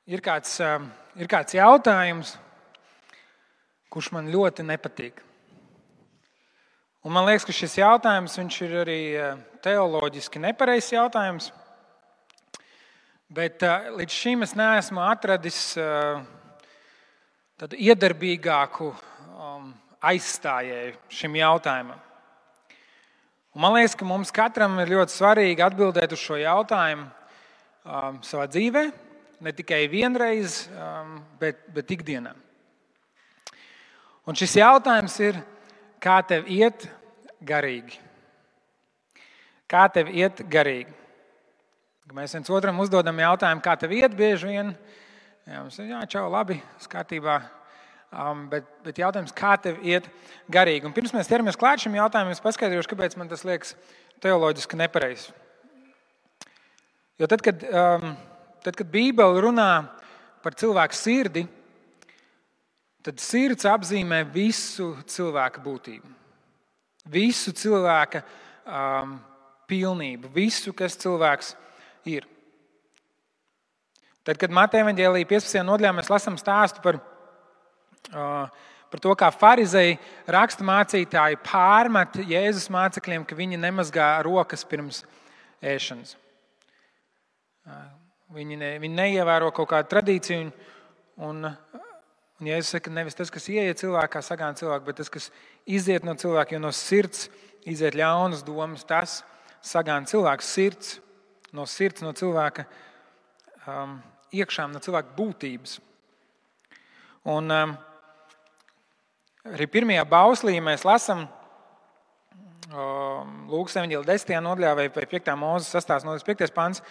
Ir kāds jautājums, kurš man ļoti nepatīk. Un man liekas, ka šis jautājums viņš ir arī teoloģiski nepareizs jautājums. Bet līdz šim es neesmu atradis tādu iedarbīgāku aizstājēju šim jautājumam. Un man liekas, ka mums katram ir ļoti svarīgi atbildēt uz šo jautājumu savā dzīvē. Ne tikai vienreiz, bet ikdienā. Un šis jautājums ir, kā tev iet garīgi? Kā tev iet garīgi? Mēs viens otram uzdodam jautājumu, kā tev iet bieži vien. Mums ir, čau, labi, kārtībā. Bet jautājums, kā tev iet garīgi? Un pirms mēs ķeramies klāt šim jautājumam, es paskaidrošu, kāpēc man tas liekas teoloģiski nepareizi. Jo tad, kad Bībele runā par cilvēku sirdi, tad sirds apzīmē visu cilvēka būtību. Visu cilvēka pilnību, visu, kas cilvēks ir. Tad, kad Mateja evaņģēlija 15. nodaļā mēs lasām stāstu par to, kā farizeji raksturmācītāji pārmet Jēzus mācekļiem, ka viņi nemazgā rokas pirms ēšanas. Viņi neievēro kaut kādu tradīciju, un Jēzus saka, nevis tas, kas ieiet cilvēkā, sagāna cilvēku, bet tas, kas iziet no cilvēka, jo no sirds iziet ļaunas domas, tas sagāna cilvēku sirds, no cilvēka iekšām, no cilvēka būtības. Un arī pirmajā bauslī mēs lasām Lūkas evaņģēlija 10. nodaļā vai 5. Mūzes 6. nodaļas 5. pants.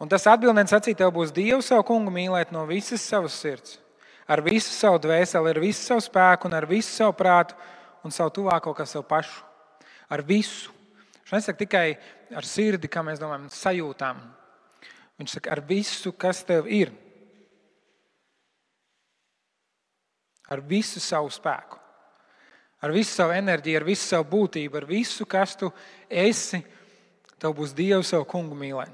Un tas atbildēs sacīja, tev būs Dievu savu kungu mīlēt no visas savas sirds, ar visu savu dvēseli, ar visu savu spēku un ar visu savu prātu un savu tuvāko kā savu pašu. Ar visu. Viņš nesaka tikai ar sirdi, kā mēs domājam, sajūtām. Viņš saka ar visu, kas tev ir. Ar visu savu spēku. Ar visu savu enerģiju, ar visu savu būtību, ar visu, kas tu esi, tev būs Dievu savu kungu mīlēt.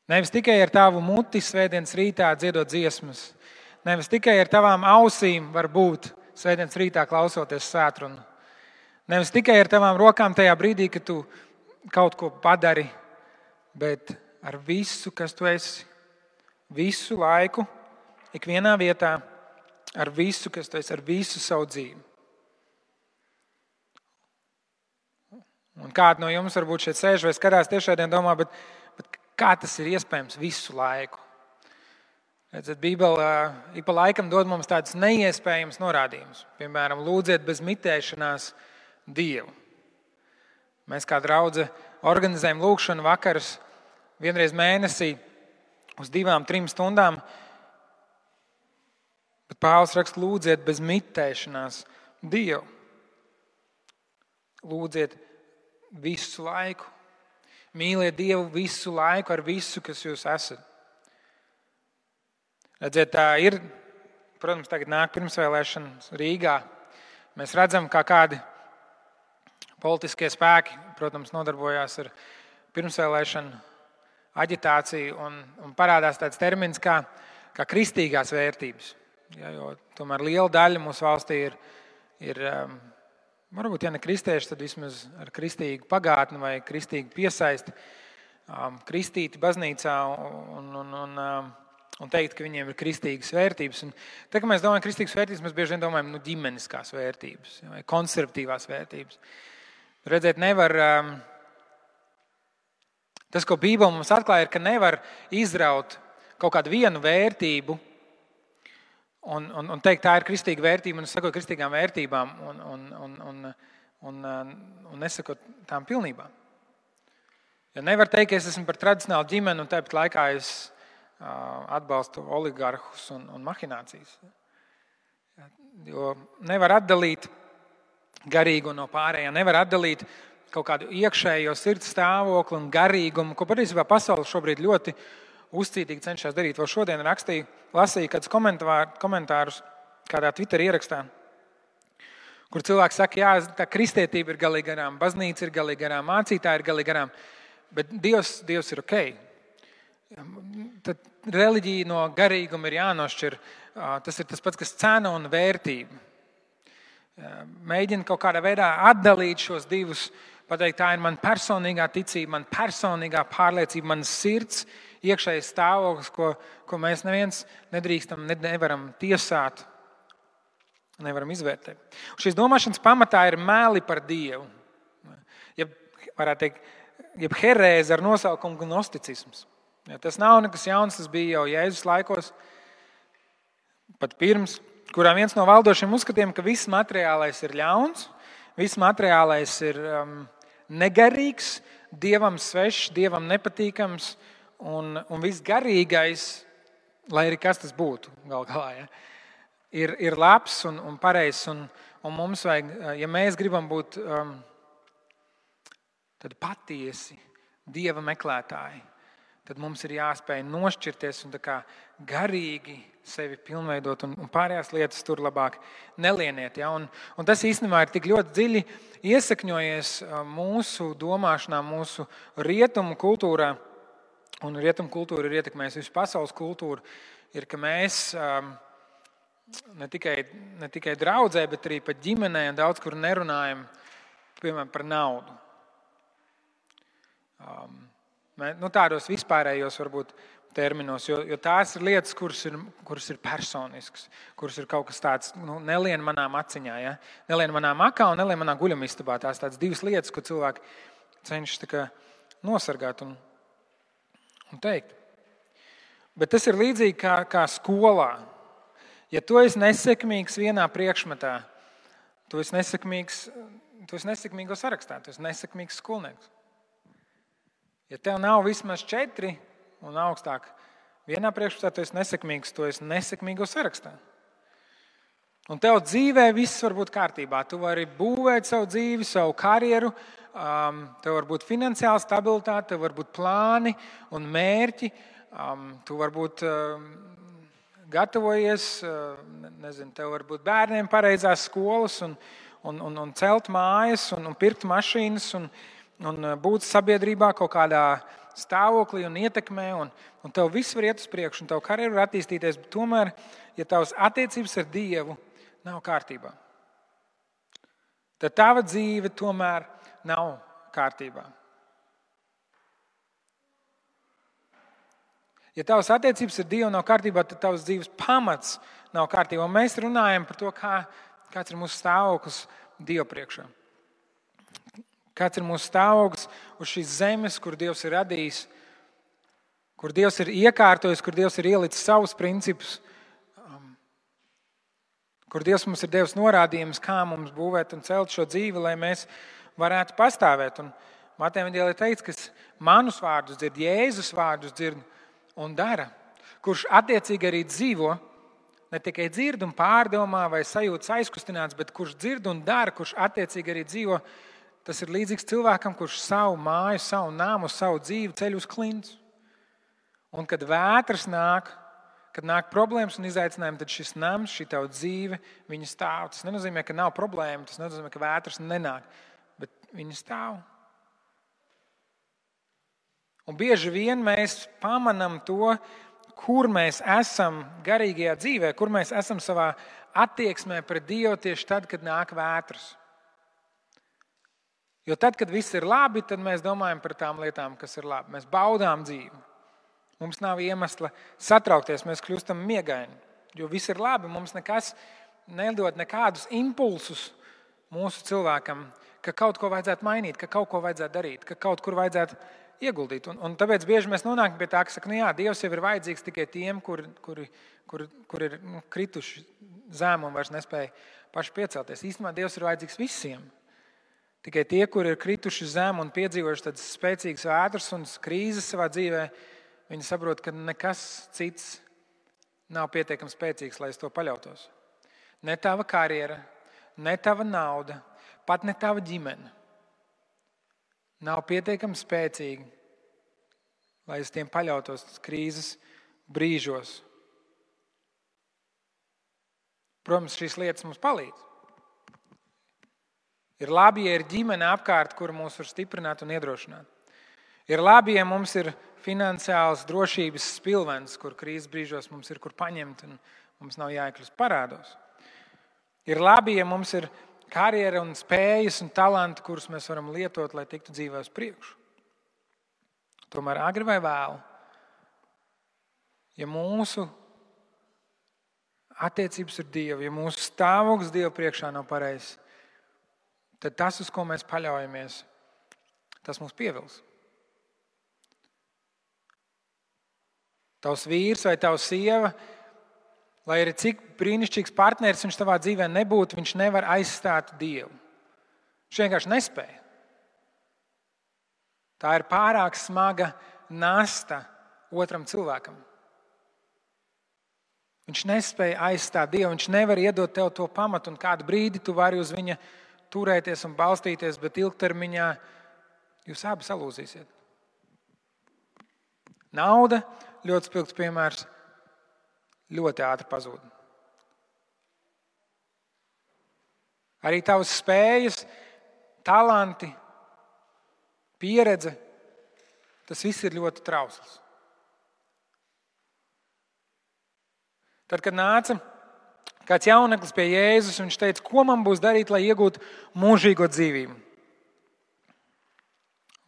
Nevis tikai ar tavu muti svētdienas rītā dziedot dziesmas. Nevis tikai ar tavām ausīm var būt svētdienas rītā klausoties svētrunu. Nevis tikai ar tavām rokām tajā brīdī, kad tu kaut ko padari, bet ar visu, kas tu esi. Visu laiku, ikvienā vietā, ar visu, kas tu esi, ar visu savu dzīvi. Un kādi no jums varbūt šeit sēž vai skatās tiešraidē un domā, bet kā tas ir iespējams visu laiku? Redzat, Bībele ik pa laikam dod mums tādus neiespējamus norādījumus. Piemēram, lūdziet bez mitēšanās Dievu. Mēs kā draudze organizējam lūgšanu vakarus vienreiz mēnesī uz 2-3 stundām. Bet Pāvils raksta, lūdziet bez mitēšanās Dievu. Lūdziet visu laiku. Mīliet Dievu visu laiku ar visu, kas jūs esat. Redziet, tā ir, protams, tagad nāk pirmsvēlēšanas Rīgā. Mēs redzam, kā kādi politiskie spēki, protams, nodarbojās ar pirmsvēlēšanu aģitāciju un parādās tāds termins kā kristīgās vērtības. Ja, jo tomēr liela daļa mūsu valstī ir varbūt, ja ne kristieši, tad vismaz ar kristīgu pagātni vai kristīgu piesaisti, kristīti baznīcā un teikt, ka viņiem ir kristīgas vērtības. Un tā, ka mēs domājam kristīgas vērtības, mēs bieži vien domājam ģimeniskās vērtības vai konservatīvās vērtības. Redzēt, nevar, tas, ko Bībele mums atklāja, ir, ka nevar izraut kaut kādu vienu vērtību un teikt, tā ir kristīga vērtība, un es sakoju kristīgām vērtībām un nesakot tām pilnībā. Ja nevar teikt, ka es esmu par tradicionālu ģimeni, un tāpat laikā es atbalstu oligarhus un mahinācijas. Jo nevar atdalīt garīgu no pārējā, nevar atdalīt kaut kādu iekšējo sirds stāvokli un garīgumu, ko patiesībā pasaule šobrīd ļoti uzcītīgi cenšas darīt. Vēl šodien lasīju kādus komentārus kādā Twitter ierakstā, kur cilvēks saka, jā, tā kristietība ir galīgi garām, baznīca ir galīgi garām, mācītāji ir galīgi garām, bet Dievs ir ok. tad reliģija no garīguma ir jānošķir. Tas ir tas pats, kas cena un vērtība. Mēģina kaut kādā veidā atdalīt šos divus, pateikt, tā ir mana personīgā ticība, mana personīgā pārliecība, manas sirds, iekšējais stāvoklis, ko mēs neviens nedrīkstam, nevaram tiesāt, nevaram izvērtēt. Un šīs domāšanas pamatā ir meli par Dievu. Varētu teikt, jeb herēze ar nosaukumu gnosticisms. Tas nav nekas jauns, tas bija jau Jēzus laikos, pat pirms, kurā viens no valdošiem uzskatiem, ka viss materiālais ir ļauns, viss materiālais ir negarīgs, Dievam svešs, Dievam nepatīkams un viss garīgais, lai arī kas tas būtu gal galā, ja, ir labs un pareizs. Un mums vajag, ja mēs gribam būt tad patiesi Dieva meklētāji, tad mums ir jāspēj nošķirties un tā kā garīgi sevi pilnveidot un pārējās lietas tur labāk nelieniet. Ja? Un tas īstenībā ir tik ļoti dziļi iesakņojies mūsu domāšanā, mūsu rietumu kultūrā. Un rietumu kultūra ir ietekmējusi visu pasaules kultūru. Ir, ka mēs ne tikai draudzē, bet arī pat ģimenē un daudz kur nerunājam, piemēram, par naudu. Tādos vispārējos varbūt terminos, jo tās ir lietas, kuras ir personiskas, kuras ir kaut kas tāds, nelien manām aciņā, ja? Nelien manā makā un nelien manā guļamistabā. Tās tādas divas lietas, ko cilvēki cenšas tā kā nosargāt un teikt. Bet tas ir līdzīgi kā skolā. Ja tu esi nesekmīgs vienā priekšmetā, tu esi nesekmīgo sarakstā, tu esi nesekmīgs skolnieks. Ja tev nav vismaz 4 un augstāk vienā priekšmetā, tu esi nesekmīgs, tu esi nesekmīgo sarakstā. Un tev dzīvē viss var būt kārtībā. Tu vari būvēt savu dzīvi, savu karjeru, tev var būt finansiāla stabilitāte, tev var būt plāni un mērķi, tu varbūt gatavojies, tev var būt bērniem pareizās skolas un celt mājas un pirkt mašīnas un būt sabiedrībā kaut kādā stāvoklī un ietekmē, un tev viss var iet uz priekšu, un tev karjeru var attīstīties, bet tomēr, ja tavas attiecības ar Dievu nav kārtībā, tad tava dzīve tomēr nav kārtībā. Ja tavas attiecības ar Dievu nav kārtībā, tad tavas dzīves pamats nav kārtībā. Un mēs runājam par to, kāds ir mūsu stāvoklis Dievu priekšā. Kāds ir mūsu stāvoklis uz šīs zemes, kur Dievs ir radījis, kur Dievs ir iekārtojis, kur Dievs ir ielicis savus principus, kur Dievs mums ir devis norādījumus, kā mums būvēt un celt šo dzīvi, lai mēs varētu pastāvēt. Un Mateja evanģēlijā teikts, kas manus vārdus dzird, Jēzus vārdus dzird un dara, kurš attiecīgi arī dzīvo, ne tikai dzird un pārdomā vai sajūtas aizkustināts, bet kurš dzird un dara, kurš attiecīgi arī dzīvo. Tas ir līdzīgs cilvēkam, kurš savu māju, savu nāmu, savu dzīvi ceļ uz klints. Un kad vētras nāk, kad nāk problēmas un izaicinājumi, tad šis nams, šī tava dzīve, viņa stāv. Tas nenozīmē, ka nav problēma, tas nenozīmē, ka vētras nenāk, bet viņa stāv. Un bieži vien mēs pamanām to, kur mēs esam garīgajā dzīvē, kur mēs esam savā attieksmē pret Dievu tieši tad, kad nāk vētras. Jo tad, kad viss ir labi, tad mēs domājam par tām lietām, kas ir labi. Mēs baudām dzīvi. Mums nav iemesla satraukties, mēs kļūstam miegaini. Jo viss ir labi, mums nekas nedod nekādus impulsus mūsu cilvēkam, ka kaut ko vajadzētu mainīt, ka kaut ko vajadzētu darīt, ka kaut kur vajadzētu ieguldīt. Un tāpēc bieži mēs nonākam pie tā, ka saka, jā, Dievs jau ir vajadzīgs tikai tiem, kur ir krituši zem un vairs nespēja paši piecelties. Īstenībā Dievs ir vajadzīgs visiem. Tikai tie, kuri ir krituši zem un piedzīvojuši tādas spēcīgas vētras un krīzes savā dzīvē, viņi saprot, ka nekas cits nav pietiekami spēcīgs, lai uz to paļautos. Ne tava karjera, ne tava nauda, pat ne tava ģimene nav pietiekami spēcīgi, lai uz tiem paļautos krīzes brīžos. Protams, šīs lietas mums palīdz. Ir labi, ja ir ģimene apkārt, kur mūs var stiprināt un iedrošināt. Ir labi, ja mums ir finansiāls drošības spilvens, kur krīzes brīžos mums ir kur paņemt un mums nav jāiekļūst parādos. Ir labi, ja mums ir karjera un spējas un talanti, kurus mēs varam lietot, lai tiktu dzīvē uz priekšu. Tomēr agri vai vēlu, ja mūsu attiecības ar Dievu, ja mūsu stāvoklis Dievu priekšā nav pareizs, tad tas, uz ko mēs paļaujamies, tas mūs pievils. Tavs vīrs vai tava sieva, lai arī cik brīnišķīgs partneris viņš tavā dzīvē nebūtu, viņš nevar aizstāt Dievu. Viņš vienkārši nespēja. Tā ir pārāk smaga nasta otram cilvēkam. Viņš nespēja aizstāt Dievu, viņš nevar iedot tev to pamatu, un kādu brīdi tu vari uz viņa turēties un balstīties, bet ilgtermiņā jūs abi salūzīsiet. Nauda, ļoti spilgts piemērs, ļoti ātri pazūd. Arī tavas spējas, talanti, pieredze, tas viss ir ļoti trausls. Tad, kad nāca kāds jauneklis pie Jēzus, viņš teica, ko man būs darīt, lai iegūtu mūžīgo dzīvību?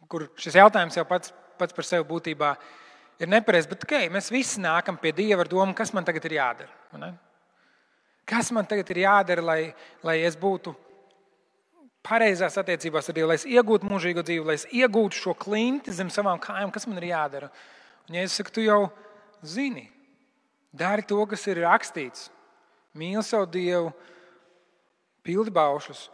Kur šis jautājums jau pats par sevi būtībā ir nepareizs, bet mēs visi nākam pie Dieva ar domu, kas man tagad ir jādara. Ne? Kas man tagad ir jādara, lai es būtu pareizās attiecībās ar Dievu, lai es iegūtu mūžīgo dzīvi, lai es iegūtu šo klinti zem savām kājām, kas man ir jādara. Un Jēzus saka, tu jau zini, dari to, kas ir rakstīts. Mīli savu Dievu, pildi baušus.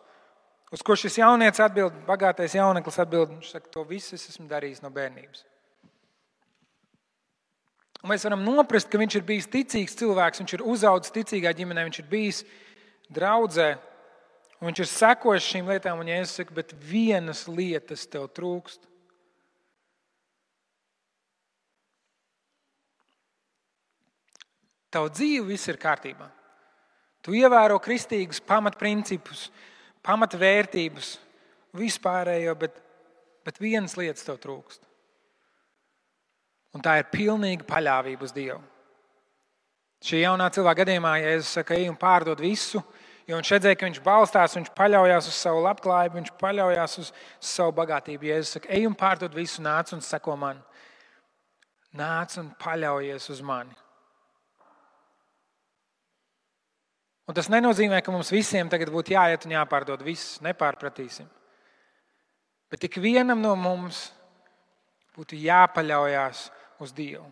Uz ko šis jaunietis atbild, bagātais jauneklis atbild, viņš saka, to visu es esmu darījis no bērnības. Un mēs varam noprast, ka viņš ir bijis ticīgs cilvēks, viņš ir uzaudzis ticīgā ģimenē, viņš ir bijis draudzē, un viņš ir sekojis šīm lietām, un Jēzus saka, bet vienas lietas tev trūkst. Tavu dzīvi viss ir kārtībā. Tu ievēro kristīgus pamatprincipus, pamatvērtības, vispārējo, bet vienas lietas tev trūkst. Un tā ir pilnīga paļāvība uz Dievu. Šī jaunā cilvēka gadījumā, ja Jēzus saka, ej un pārdod visu, jo viņš redzēja, ka viņš balstās, viņš paļaujās uz savu labklājību, viņš paļaujās uz savu bagātību. Jēzus saka, ej un pārdod visu, nāc un seko man. Nāc un paļaujies uz mani. Un tas nenozīmē, ka mums visiem tagad būtu jāiet un jāpārdod viss, nepārpratīsim. Bet ik vienam no mums būtu jāpaļaujās uz Dievu.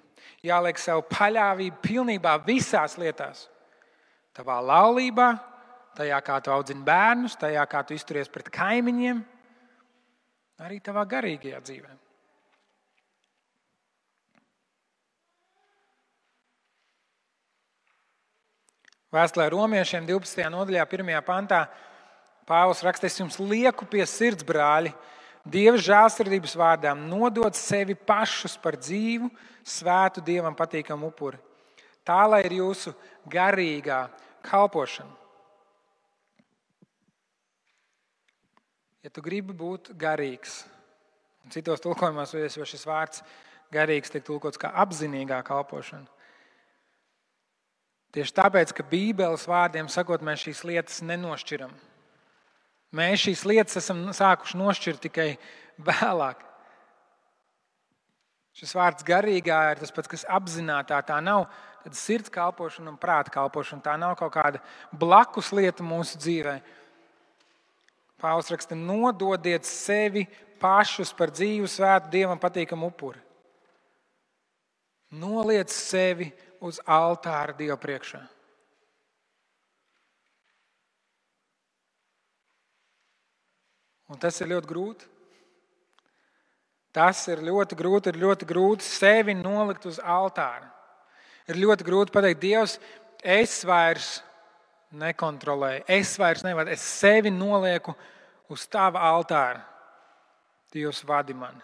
Jāliek savu paļāvību pilnībā visās lietās. Tavā laulībā, tajā, kā tu audzini bērnus, tajā, kā tu izturies pret kaimiņiem, arī tavā garīgajā dzīvē. Vēstulē Romiešiem 12. nodaļā, 1. pantā, Pāvils raksta, es jums lieku pie sirds, brāļi, Dieva žēlsirdības vārdām, nodot sevi pašus par dzīvu, svētu Dievam patīkamu upuri. Tā, lai ir jūsu garīgā kalpošana. Ja tu gribi būt garīgs, un citos tulkojumos, vai šis vārds garīgs tiek tulkots kā apzinīgā kalpošana. Tieši tāpēc, ka Bībeles vārdiem sakot, mēs šīs lietas nenošķiram. Mēs šīs lietas esam sākuši nošķirt tikai vēlāk. Šis vārds garīgā ir tas pats, kas apzinātā. Tā nav sirds kalpošana un prāta kalpošana. Tā nav kaut kāda blakus lieta mūsu dzīvē. Pāvils raksta, nododiet sevi pašus par dzīvu, svētu, Dievam patīkamu upuri. Noliec sevi uz altāra Dieva priekšā. Un tas ir ļoti grūti. Tas ir ļoti grūti sevi nolikt uz altāra. Ir ļoti grūti pateikt, Dievs, es vairs nekontrolēju, es vairs nevaru, es sevi nolieku uz tava altāra. Dievs vadi mani.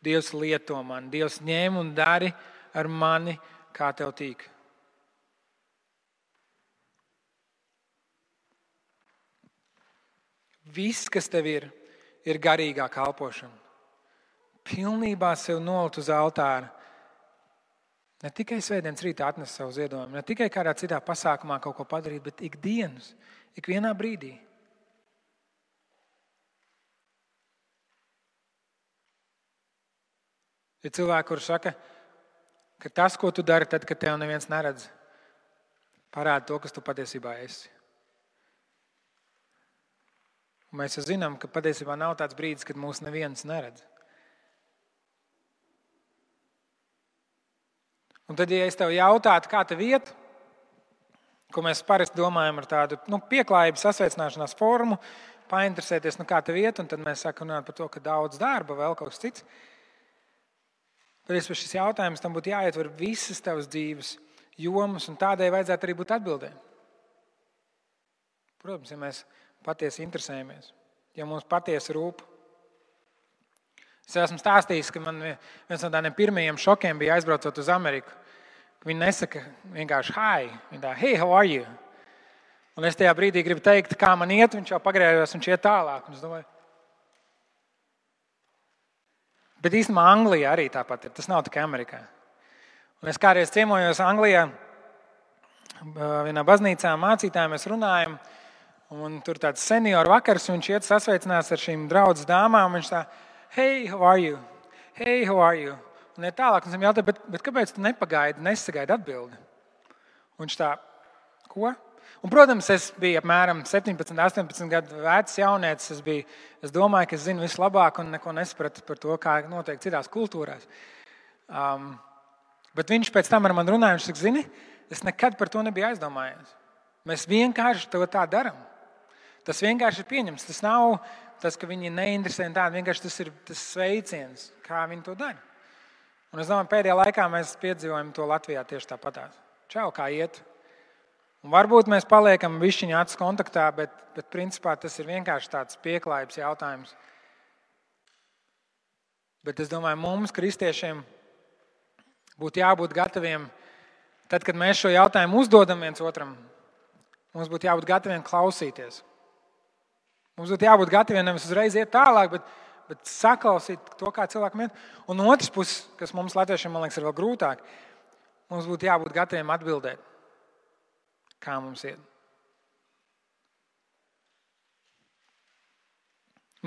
Dievs lieto mani. Dievs ņem un dari ar mani, kā tev tīk. Viss, kas tev ir garīgā kalpošana. pilnībā sev nolikt uz altāra. Ne tikai svētdienas rītā atnest savu ziedojumu, ne tikai kādā citā pasākumā kaut ko padarīt, bet ikdienas, ikvienā brīdī. Ir cilvēki, kuri saka, ka tas, ko tu dari tad, kad tev neviens neredz, parāda to, kas tu patiesībā esi. Un mēs zinām, ka patiesībā nav tāds brīdis, kad mūs neviens neredz. Un tad, ja es tev jautātu, kā tev iet, ko mēs parasti domājam ar tādu pieklājības sasveicināšanās formu, painteresēties, kā tev iet, un tad mēs sākam runāt par to, ka daudz darba, vēl kaut kas cits. Tad šis jautājums tam būtu jāietver visas tavas dzīves jomas, un tādai vajadzētu arī būt atbildēm. Protams, ja mēs patiesi interesējamies, ja mums patiesi rūp. Es esmu stāstījis, ka man viens no tādiem pirmajiem šokiem bija aizbraucot uz Ameriku. Viņi nesaka vienkārši hi, viņi tā, hey, how are you? Un es tajā brīdī gribu teikt, kā man iet, viņš jau pagrējos, viņš iet tālāk. Un es domāju, bet īstenībā Anglijā arī tāpat ir, tas nav tikai Amerikā. Un es kādreiz ciemojos Anglijā, vienā baznīcā mācītājiem mēs runājam, un tur tāds senioru vakars, viņš iet sasveicinās ar šīm draudzes dāmām, un viņš tā, hey, how are you? Hey, how are you? Un ir tālāk, un es viņam jautāju, bet kāpēc tu nesagaidi atbildi? Un viņš tā, ko? Un, protams, es biju apmēram 17, 18 gadu vecs jaunietis. Es domāju, ka es zinu vislabāk un neko nesapratu par to, kā notiek citās kultūrās. Bet viņš pēc tam ar mani runāja, viņš saka, zini, es nekad par to nebiju aizdomājies. Mēs vienkārši to tā darām. Tas vienkārši ir pieņems. Tas nav tas, ka viņi neinteresē tādu, vienkārši tas ir tas sveiciens, kā viņi to dara. Un es domāju, pēdējā laikā mēs piedzīvojam to Latvijā tieši tāpatās. Čau, kā iet? Un varbūt mēs paliekam višķiņā acu kontaktā, bet principā tas ir vienkārši tāds pieklājības jautājums. Bet es domāju, mums, kristiešiem, būtu jābūt gataviem, tad, kad mēs šo jautājumu uzdodam viens otram, mums būtu jābūt gataviem klausīties. Mums būtu jābūt gataviem nevis uzreiz iet tālāk, bet saklausīt to, kā cilvēkam iet. Un no otras puses, kas mums latviešiem, man liekas, ir vēl grūtāk, mums būtu jābūt gataviem atbildēt, kā mums iet.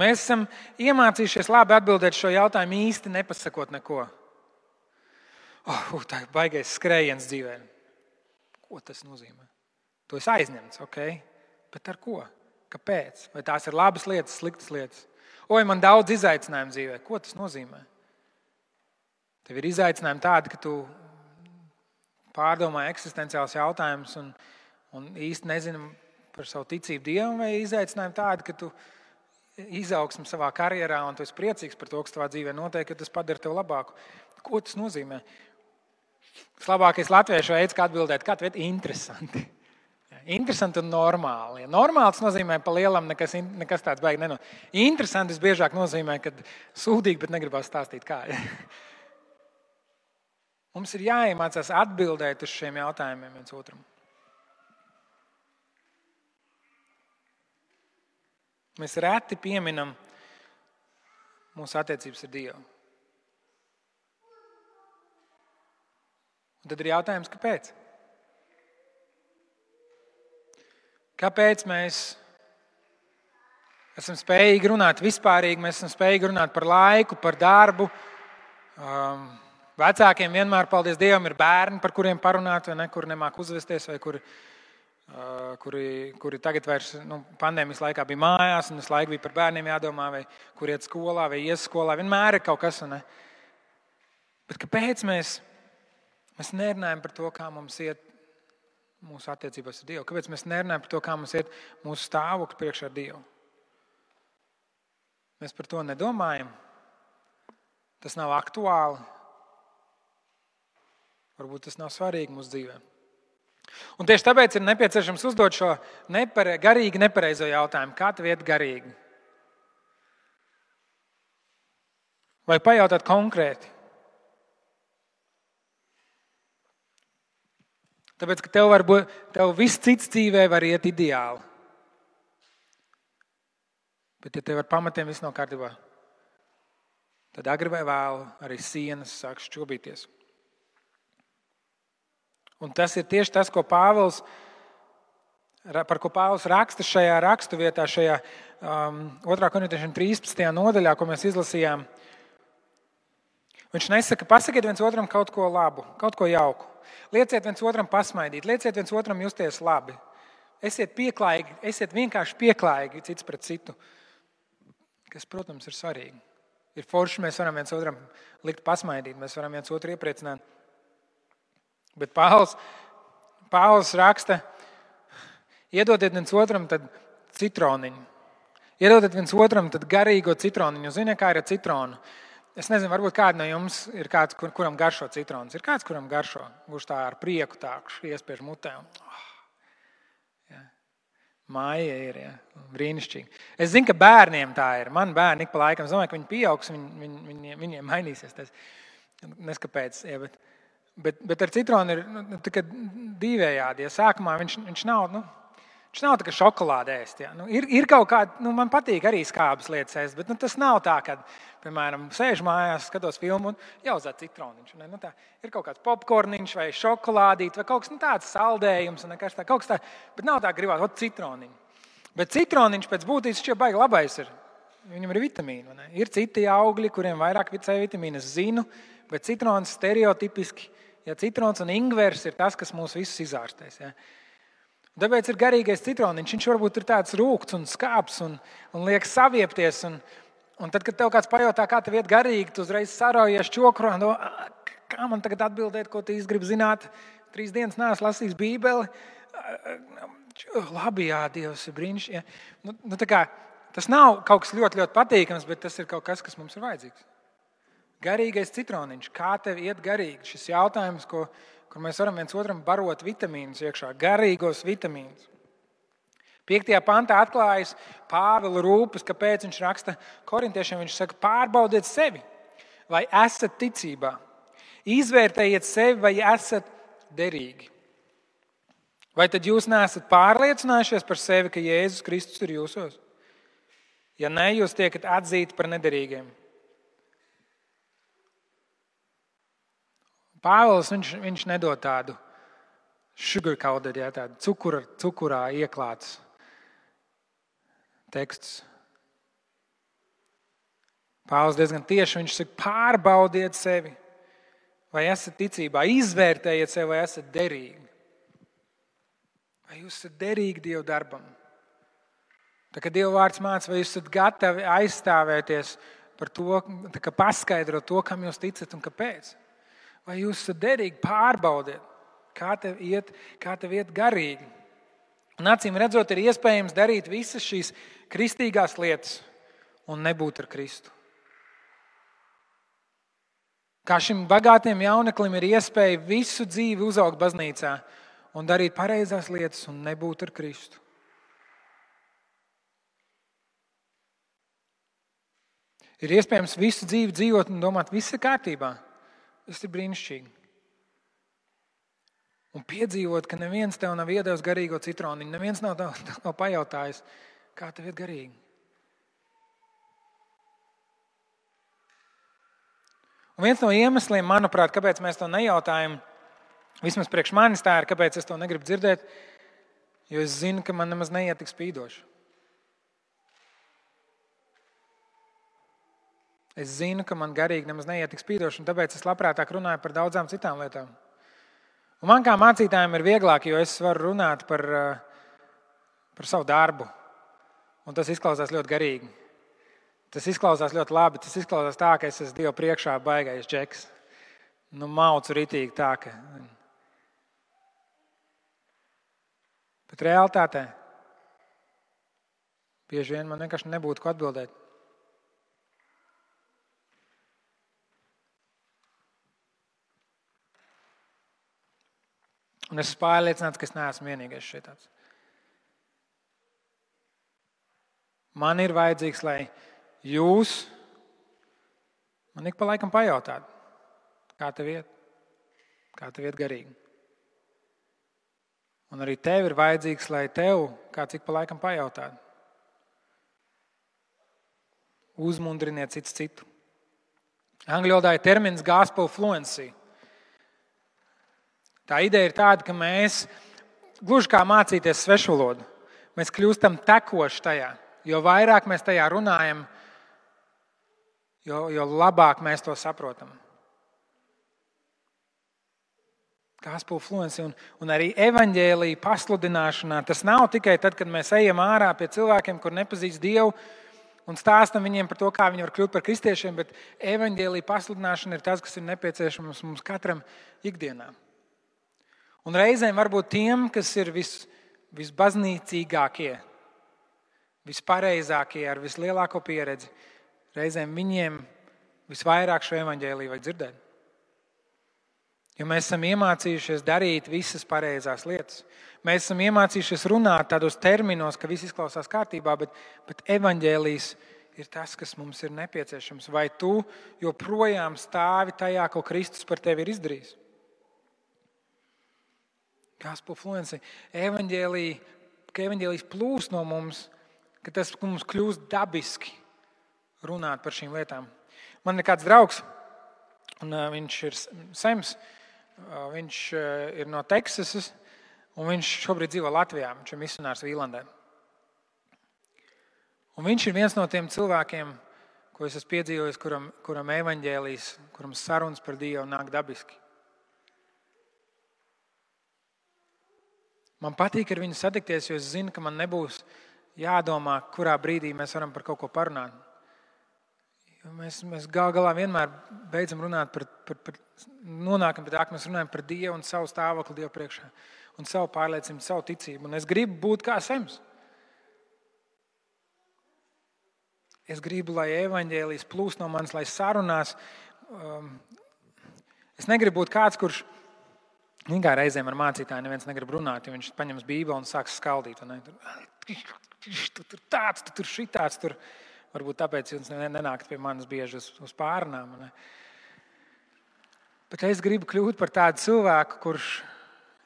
Mēs esam iemācījušies labi atbildēt šo jautājumu īsti nepasakot neko. Tā ir baigais skrējiens dzīvē. Ko tas nozīmē? To es aizņemts, ok? Bet ar ko? Kāpēc? Vai tās ir labas lietas, sliktas lietas? Man daudz izaicinājumu dzīvē. Ko tas nozīmē? Tev ir izaicinājumi tādi, ka tu pārdomā eksistenciāls jautājums un īsti nezini par savu ticību Dievam, vai izaicinājumi tādi, ka tu izaugsmi savā karjerā un tu esi priecīgs par to, kas tavā dzīvē notiek, ka tas padara tev labāku. Ko tas nozīmē? Tas labākais latviešu veids, kā atbildēt, kā tev ir interesanti. Interesanti un normāli. Normāli tas nozīmē, pa lielam nekas tāds baigi nenotiek. Interesanti biežāk nozīmē, ka sūdīgi, bet negribas stāstīt kā. Mums ir jāiemācās atbildēt uz šiem jautājumiem viens otram. Mēs reti pieminam mūsu attiecības ar Dievu. Un tad ir jautājums, kāpēc? Kāpēc mēs esam spējīgi runāt vispārīgi, mēs esam spējīgi runāt par laiku, par darbu. Vecākiem vienmēr, paldies Dievam, ir bērni, par kuriem parunāt, vai ne, kuri nemāk uzvesties, vai kuri tagad vairs pandēmijas laikā bija mājās, un visu laiku bija par bērniem jādomā, vai kur iet skolā, vai ies skolā. Vienmēr ir kaut kas. Ne? Bet kāpēc mēs nerunājam par to, kā mums iet mūsu attiecībās ar Dievu? Kāpēc mēs nerunājam par to, kā mums iet mūsu stāvoklis priekšā ar Dievu? Mēs par to nedomājam. Tas nav aktuāli. Varbūt tas nav svarīgi mūsu dzīvē. Un tieši tāpēc ir nepieciešams uzdot šo garīgi nepareizo jautājumu. Kā tev iet garīgi? Vai pajautāt konkrēti? Tāpēc, ka tev viss cits dzīvē var iet ideāli. Bet ja tev ar pamatiem viss nav kārtībā, tad agri vai vēlu arī sienas sāks šķobīties. Un tas ir tieši tas, par ko Pāvils raksta šajā raksturvietā, šajā 2. Korintiešiem 13. nodaļā, ko mēs izlasījām. Viņš nesaka, pasakiet viens otram kaut ko labu, kaut ko jauku. Lieciet viens otram pasmaidīt, lieciet viens otram justies labi. Esiet pieklājīgi, esiet vienkārši pieklājīgi cits pret citu, kas, protams, ir svarīgi. Ir forši, mēs varam viens otram likt pasmaidīt, mēs varam viens otru iepriecināt. Bet Pāvils raksta, iedodiet viens otram tad citroniņu. Iedodiet viens otram tad garīgo citroniņu. Ziniet, kā ir ar citronu? Es nezinu, varbūt kāds no jums ir kāds, kuram garšo citrons. Ir kāds, kuram garšo, kurš tā ar prieku tā iespiež mutē. Māja ir, brīnišķīgi. Es zinu, ka bērniem tā ir. Man bērni ik pa laikam, es domāju, ka viņi pieaugs, viņiem mainīsies tas. Neskapēc, bet ar citronu ir dīvējādi. Ja sākumā viņš nav tā kā šokolāde ēst. Ja. Ir kaut kāda, man patīk arī skābas lietas ēst, bet tas nav tā, kad, piemēram, sēžu mājās, skatos filmu un jāuzāc citroniņš. Tā, ir kaut kāds popkorniņš vai šokolādīt vai kaut kas tāds saldējums, kaut kas tā, bet nav tā gribāt, citroniņu. Bet citroniņš pēc būtības šķiet baigi labais ir. Viņam ir vitamīni. Ne? Ir citi augļi, kuriem vairāk C vitamīna, es zinu, bet citrons stereotipiski, ja citrons un ingvers ir tas, kas mūs visus izārstēs. Ja? Tāpēc ir garīgais citroniņš. Viņš varbūt ir tāds rūgts un skāps un liek saviepties. Un tad, kad tev kāds pajautā, kā tev iet garīgi, tu uzreiz saraujies čokurā. Kā man tagad atbildēt, ko tu īsti gribi zināt? 3 dienas neesmu lasījis Bībeli. Labi, jā, Dievs ir brīnišķīgi. Tas nav kaut kas ļoti, ļoti patīkams, bet tas ir kaut kas mums ir vajadzīgs. Garīgais citroniņš. Kā tev iet garīgi? Šis jautājums, kur mēs varam viens otram barot vitamīnus iekšā, garīgos vitamīnus. 5. pantā atklājas Pāvila rūpes, kāpēc viņš raksta korintiešiem. Viņš saka, pārbaudiet sevi, vai esat ticībā. Izvērtējiet sevi, vai esat derīgi. Vai tad jūs neesat pārliecinājušies par sevi, ka Jēzus Kristus ir jūsos? Ja ne, jūs tiekat atzīti par nederīgiem. Pāvils, viņš nedod tādu sugar-coated, tādu cukurā ieklāts teksts. Pāvils diezgan tieši, viņš saka, pārbaudiet sevi, vai esat ticībā, izvērtējiet sevi, vai esat derīgi. Vai jūs esat derīgi Dieva darbam? Tā kā Dieva vārds māca, vai jūs esat gatavi aizstāvēties par to, paskaidrot to, kam jūs ticat un kāpēc. Vai jūs esat derīgi, pārbaudiet, kā tev iet garīgi. Un acīm redzot, ir iespējams darīt visas šīs kristīgās lietas un nebūt ar Kristu. Kā šim bagātiem jauneklim ir iespēja visu dzīvi uzaugt baznīcā un darīt pareizās lietas un nebūt ar Kristu. Ir iespējams visu dzīvi dzīvot un domāt, viss ir kārtībā. Tas ir brīnišķīgi. Un piedzīvot, ka neviens tev nav iedevis garīgo citroniņu, neviens nav pajautājis, kā tev iet garīgi. Un viens no iemesliem, manuprāt, kāpēc mēs to nejautājam, vismaz priekš manis tā ir, kāpēc es to negribu dzirdēt, jo es zinu, ka man nemaz neiet tik spīdoši. Es zinu, ka man garīgi nemaz neiet tik spīdoši, un tāpēc es labprātāk runāju par daudzām citām lietām. Un man kā mācītājiem ir vieglāk, jo es varu runāt par savu darbu. Un tas izklausās ļoti garīgi. Tas izklausās ļoti labi. Tas izklausās tā, ka es esmu Dieva priekšā baigais džeks. Maucu ritīgi tā, ka... Bet realitātē bieži vien man vienkārši nebūtu ko atbildēt. Un es esmu pārliecināts, ka es neesmu vienīgais šeit tāds. Man ir vajadzīgs, lai jūs man ik pa laikam pajautātu, kā tev iet garīgi. Un arī tev ir vajadzīgs, lai tev kāds ik pa laikam pajautātu. Uzmundriniet cits citu. Angļu valodā ir termins gospel fluency. Tā ideja ir tāda, ka mēs, gluži kā mācīties svešvalodu, mēs kļūstam tekoši tajā. Jo vairāk mēs tajā runājam, jo labāk mēs to saprotam. Gospel fluency un arī evaņģēlija pasludināšanā. Tas nav tikai tad, kad mēs ejam ārā pie cilvēkiem, kur nepazīst Dievu un stāstam viņiem par to, kā viņi var kļūt par kristiešiem, bet evaņģēlija pasludināšana ir tas, kas ir nepieciešams mums katram ikdienā. Un reizēm varbūt tiem, kas ir visbaznīcīgākie, vispareizākie, ar vislielāko pieredzi, reizēm viņiem visvairāk šo evaņģēliju vajag dzirdēt. Jo mēs esam iemācījušies darīt visas pareizās lietas. Mēs esam iemācījušies runāt tādos terminos, ka viss izklausās kārtībā, bet evaņģēlijs ir tas, kas mums ir nepieciešams. Vai tu joprojām stāvi tajā, ko Kristus par tevi ir izdarījis? Gospel fluency. Ka evaņģēlijs plūst no mums, ka tas mums kļūst dabiski runāt par šīm lietām. Man ir kāds draugs, un viņš ir Sems. Viņš ir no Teksasas, un viņš šobrīd dzīvo Latvijā. Viņš ir misionārs Vīlandē. Un viņš ir viens no tiem cilvēkiem, ko es esmu piedzīvojis, kuram evaņģēlijs, kuram sarunas par Dievu nāk dabiski. Man patīk ar viņu satikties, jo es zinu, ka man nebūs jādomā, kurā brīdī mēs varam par kaut ko parunāt. Mēs gal galā vienmēr beidzam runāt nonākam pie tā, ka mēs runājam par Dievu un savu stāvokli Dievu priekšā un savu pārliecību, savu ticību. Un es gribu būt kā Sems. Es gribu, lai evaņģēlijs plūst no manis, lai sarunās. Es negribu būt kāds, kurš kā reizēm ar mācītāju neviens negrib runāt, jo viņš paņems Bībeli un sāks skaldīt. Tu tur tāds, tu tur šitāds, tur. Varbūt tāpēc jūs nenākat pie manis bieži uz pārunām. Bet es gribu kļūt par tādu cilvēku, kurš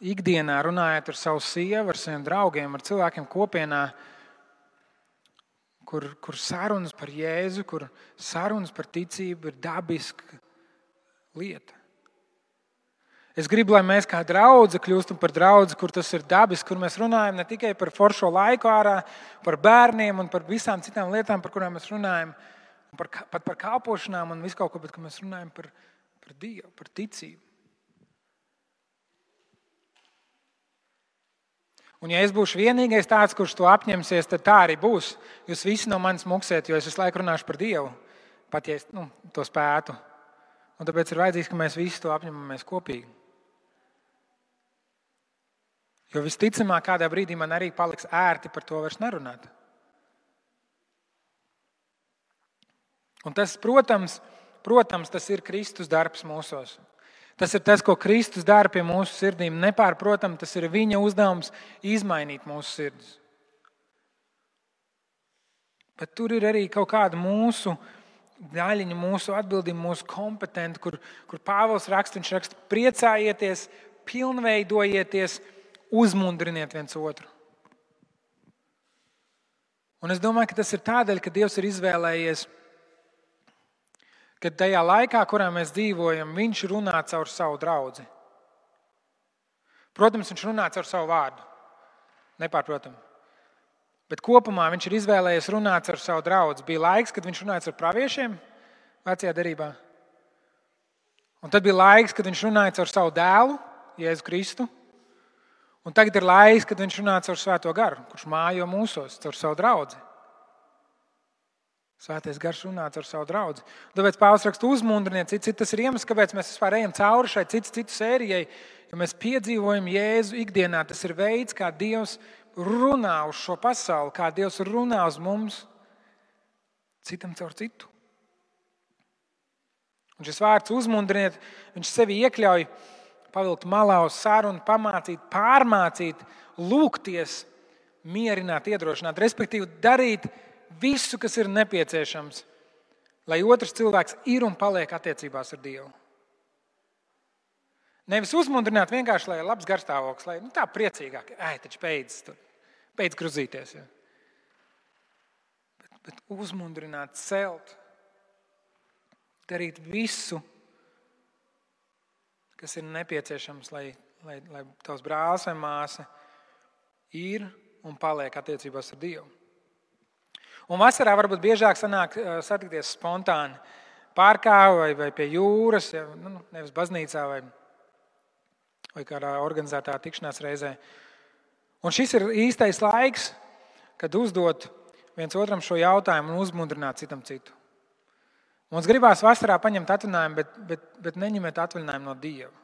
ikdienā runājot ar savu sievu, ar saviem draugiem, ar cilvēkiem kopienā, kur sarunas par Jēzu, kur sarunas par ticību ir dabiska lieta. Es gribu, lai mēs kā draudze kļūstam par draudzi, kur tas ir dabiski, kur mēs runājam ne tikai par foršo laiku ārā, par bērniem un par visām citām lietām, par kurām mēs runājam, pat par kalpošanām un visu kaut ko, bet ka mēs runājam par Dievu, par ticību. Un ja es būšu vienīgais tāds, kurš to apņemsies, tad tā arī būs. Jūs visi no manis muksiet, jo es visu laiku runāšu par Dievu, pat ja es to spētu. Un tāpēc ir vajadzīgs, ka mēs visi to apņemamies kopīgi. Jo visticamāk, kādā brīdī man arī paliks ērti par to vairs nerunāt. Un tas, protams, tas ir Kristus darbs mūsos. Tas ir tas, ko Kristus dara pie mūsu sirdīm. Nepārprotam, tas ir viņa uzdevums izmainīt mūsu sirdis. Bet tur ir arī kaut kāda mūsu daļiņa, mūsu atbildība, mūsu kompetenti, kur Pāvils raksta, viņš raksta, priecājieties, pilnveidojieties, uzmundriniet viens otru. Un es domāju, ka tas ir tādēļ, ka Dievs ir izvēlējies, ka tajā laikā, kurā mēs dzīvojam, viņš runā caur savu draudzi. Protams, viņš runā caur savu vārdu. Nepārprotam. Bet kopumā viņš ir izvēlējies runāt caur savu draudzi. Bija laiks, kad viņš runāja caur praviešiem vecajā derībā. Un tad bija laiks, kad viņš runāja caur savu dēlu, Jēzu Kristu. Un tagad ir laiks, kad viņš runā caur Svēto garu, kurš mājo mūsos, caur savu draudzi. Svētais gars runā caur savu draudzi. Tāpēc Pāvils raksta, uzmundriniet, tas ir iemesls, kāpēc mēs vispār ejam cauri šai citu sērijai, jo mēs piedzīvojam Jēzu ikdienā. Tas ir veids, kā Dievs runā uz šo pasauli, kā Dievs runā uz mums, citam caur citu. Un šis vārds uzmundriniet, viņš sevi iekļauj pavilkt malā uz sarunu, pamācīt, pārmācīt, lūgties, mierināt, iedrošināt, respektīvi darīt visu, kas ir nepieciešams, lai otrs cilvēks ir un paliek attiecībās ar Dievu. Nevis uzmundrināt vienkārši, lai ir labs garstāvoklis, lai tā priecīgāk, taču beidz gruzīties. Ja. Bet uzmundrināt, celt. darīt visu, kas ir nepieciešams, lai tavs brālis vai māsa ir un paliek attiecībās ar Dievu. Un vasarā varbūt biežāk sanāk satikties spontāni parkā vai pie jūras, nevis baznīcā vai kādā organizētā tikšanās reizē. Un šis ir īstais laiks, kad uzdot viens otram šo jautājumu un uzmundrināt citam citu. Mums gribās vasarā paņemt atvaļinājumu, bet neņemiet atvaļinājumu no Dieva.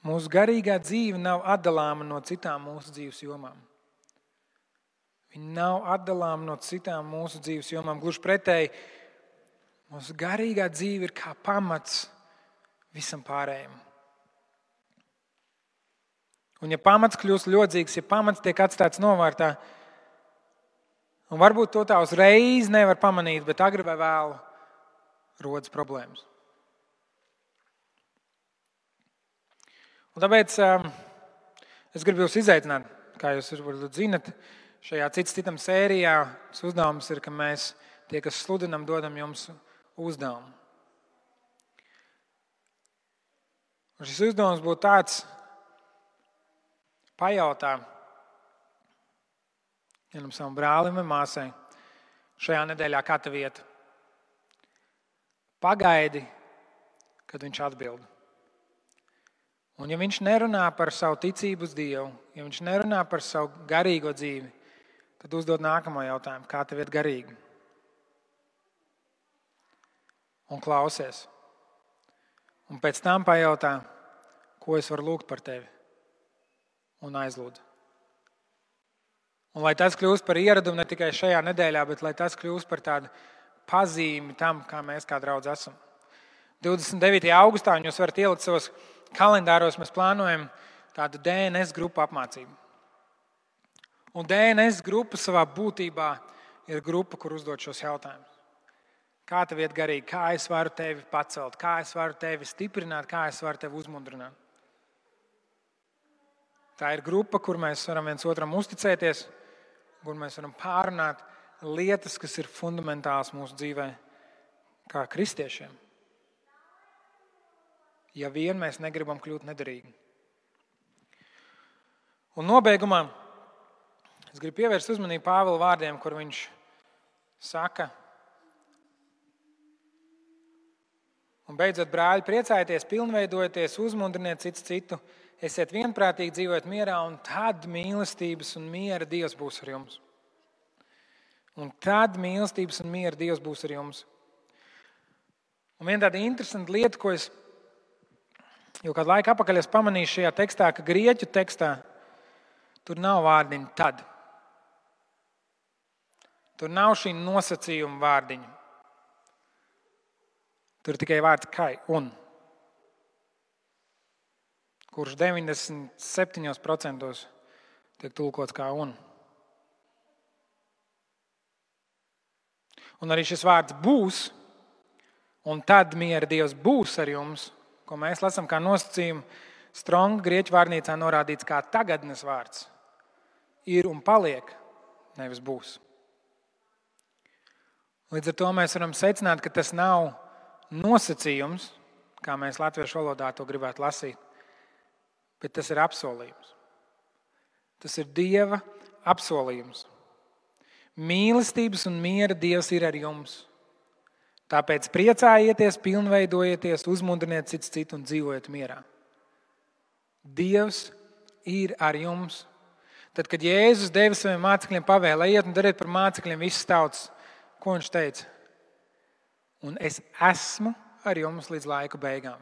Mūsu garīgā dzīve nav atdalāma no citām mūsu dzīves jomām. Viņa nav atdalāma no citām mūsu dzīves jomām. Gluži pretēji, mūsu garīgā dzīve ir kā pamats visam pārējiem. Un ja pamats kļūst ļodzīgs, ja pamats tiek atstāts novārtā, un varbūt to tā uzreiz nevar pamanīt, bet agri vai vēlu rodas problēmas. Un tāpēc es gribu jūs izaicināt, kā jūs varbūt zinat, šajā citam sērijā uzdevums ir, ka mēs, tie, kas sludinam, dodam jums uzdevumu. Un šis uzdevums būtu tāds: pajautā vienam savam brālim vai māsai šajā nedēļā, kā tev iet. Pagaidi, kad viņš atbild. Un ja viņš nerunā par savu ticību uz Dievu, ja viņš nerunā par savu garīgo dzīvi, tad uzdod nākamo jautājumu: kā tev iet garīgi? Un klausies. Un pēc tam pajautā, ko es varu lūgt par tevi. Un aizlūdz. Un lai tas kļūst par ieradumu ne tikai šajā nedēļā, bet lai tas kļūst par tādu pazīmi tam, kā mēs kā draudz esam. 29. augustā, un jūs varat ielikt savos kalendāros, mēs plānojam tādu DNS grupu apmācību. Un DNS grupa savā būtībā ir grupa, kur uzdot šos jautājumus. Kā tev iet garīgi? Kā es varu tevi pacelt? Kā es varu tevi stiprināt? Kā es varu tevi uzmundrināt? Tā ir grupa, kur mēs varam viens otram uzticēties, kur mēs varam pārunāt lietas, kas ir fundamentāls mūsu dzīvē kā kristiešiem. Ja vien mēs negribam kļūt nederīgi. Un nobeigumā es gribu pievērst uzmanību Pāvila vārdiem, kur viņš saka: un beidzot, brāļi, priecājieties, pilnveidojieties, uzmundriniet cits citu, esiet vienprātīgi, dzīvojiet mierā, un tad mīlestības un miera Dievs būs ar jums. Un tad mīlestības un miera Dievs būs ar jums. Un viena tāda interesanta lieta, ko es jau kādu laiku atpakaļ es pamanīju šajā tekstā, ka grieķu tekstā tur nav vārdiņa tad. Tur nav šī nosacījuma vārdiņa. Tur ir tikai vārds kai un, kurš 97% tiek tulkots kā un. Un arī šis vārds būs, un tad miera Dievs būs ar jums, ko mēs lasām kā nosacījumu, Stronga grieķu vārnīcā norādīts kā tagadnes vārds. Ir un paliek, nevis būs. Līdz ar to mēs varam secināt, ka tas nav nosacījums, kā mēs latviešu valodā to gribētu lasīt, bet tas ir apsolījums. Tas ir Dieva apsolījums. Mīlestības un miera Dievs ir ar jums. Tāpēc priecājieties, pilnveidojieties, uzmundriniet cits citu un dzīvojiet mierā. Dievs ir ar jums. Tad, kad Jēzus deva saviem mācekļiem pavēli, ejiet un dariet par mācekļiem visas tautas, ko viņš teica? Un es esmu ar jums līdz laika beigām.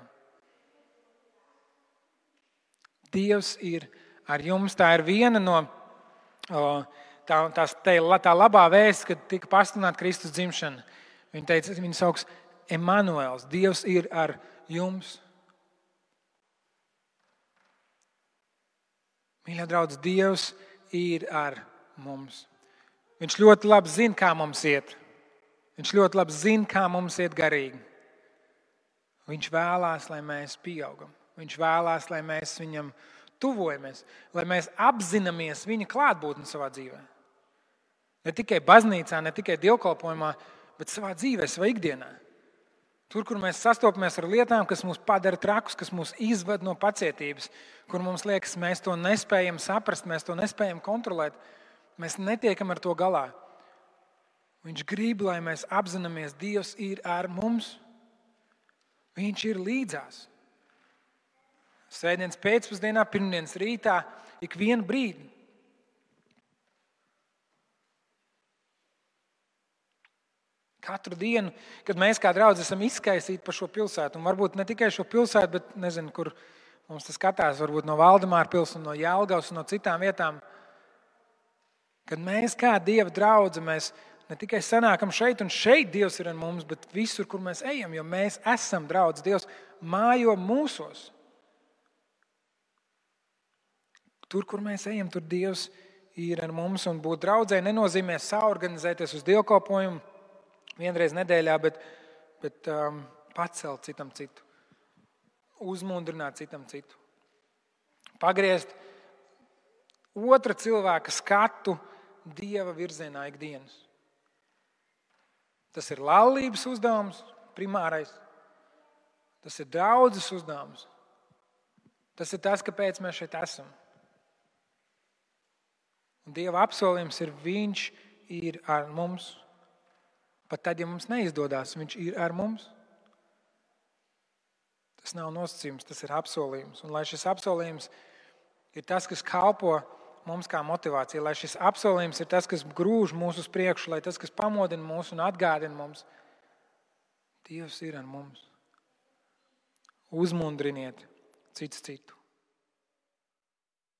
Dievs ir ar jums. Tā ir viena no tā labā vēsts, kad tika pasludināta Kristus dzimšana. Viņa teica, viņa sauks Emanuēls. Dievs ir ar jums. Mīļie draugi, Dievs ir ar mums. Viņš ļoti labi zina, kā mums iet. Viņš ļoti labi zina, kā mums iet garīgi. Viņš vēlās, lai mēs pieaugam. Viņš vēlās, lai mēs viņam tuvojamies, lai mēs apzināmies viņa klātbūtni savā dzīvē. Ne tikai baznīcā, ne tikai dievkalpojumā, bet savā dzīvē, savā ikdienā. Tur, kur mēs sastopamies ar lietām, kas mūs padara trakus, kas mūs izved no pacietības, kur mums liekas, mēs to nespējam saprast, mēs to nespējam kontrolēt, mēs netiekam ar to galā. Viņš grib, lai mēs apzināmies, Dievs ir ar mums. Viņš ir līdzās. Svētdienas pēcpusdienā, pirmdienas rītā, ikvienu brīdi. Katru dienu, kad mēs kā draudzi esam izkaisīti par šo pilsētu, un varbūt ne tikai šo pilsētu, bet nezinu, kur mums tas skatās, varbūt no Valdemāra pils un no Jelgavas un no citām vietām, kad mēs kā Dieva draudze, mēs ne tikai sanākam šeit, un šeit Dievs ir ar mums, bet visur, kur mēs ejam, jo mēs esam draudz. Dievs mājo mūsos. Tur, kur mēs ejam, tur Dievs ir ar mums, un būt draudzē nenozīmē saorganizēties uz dievkalpojumu vienreiz nedēļā, bet pacelt citam citu, uzmundrināt citam citu, pagriezt otra cilvēka skatu Dieva virzienā ikdienas. Tas ir laulības uzdevums, primārais. Tas ir draudzes uzdevums. Tas ir tas, kāpēc mēs šeit esam. Un Dieva apsolījums ir, viņš ir ar mums. Pat tad, ja mums neizdodas, viņš ir ar mums. Tas nav nosacījums, tas ir apsolījums. Un lai šis apsolījums ir tas, kas kalpo mums kā motivācija, lai šis apsolījums ir tas, kas grūž mūs uz priekšu, lai tas, kas pamodina mūs un atgādina mums, Dievs ir ar mums. Uzmundriniet cits citu.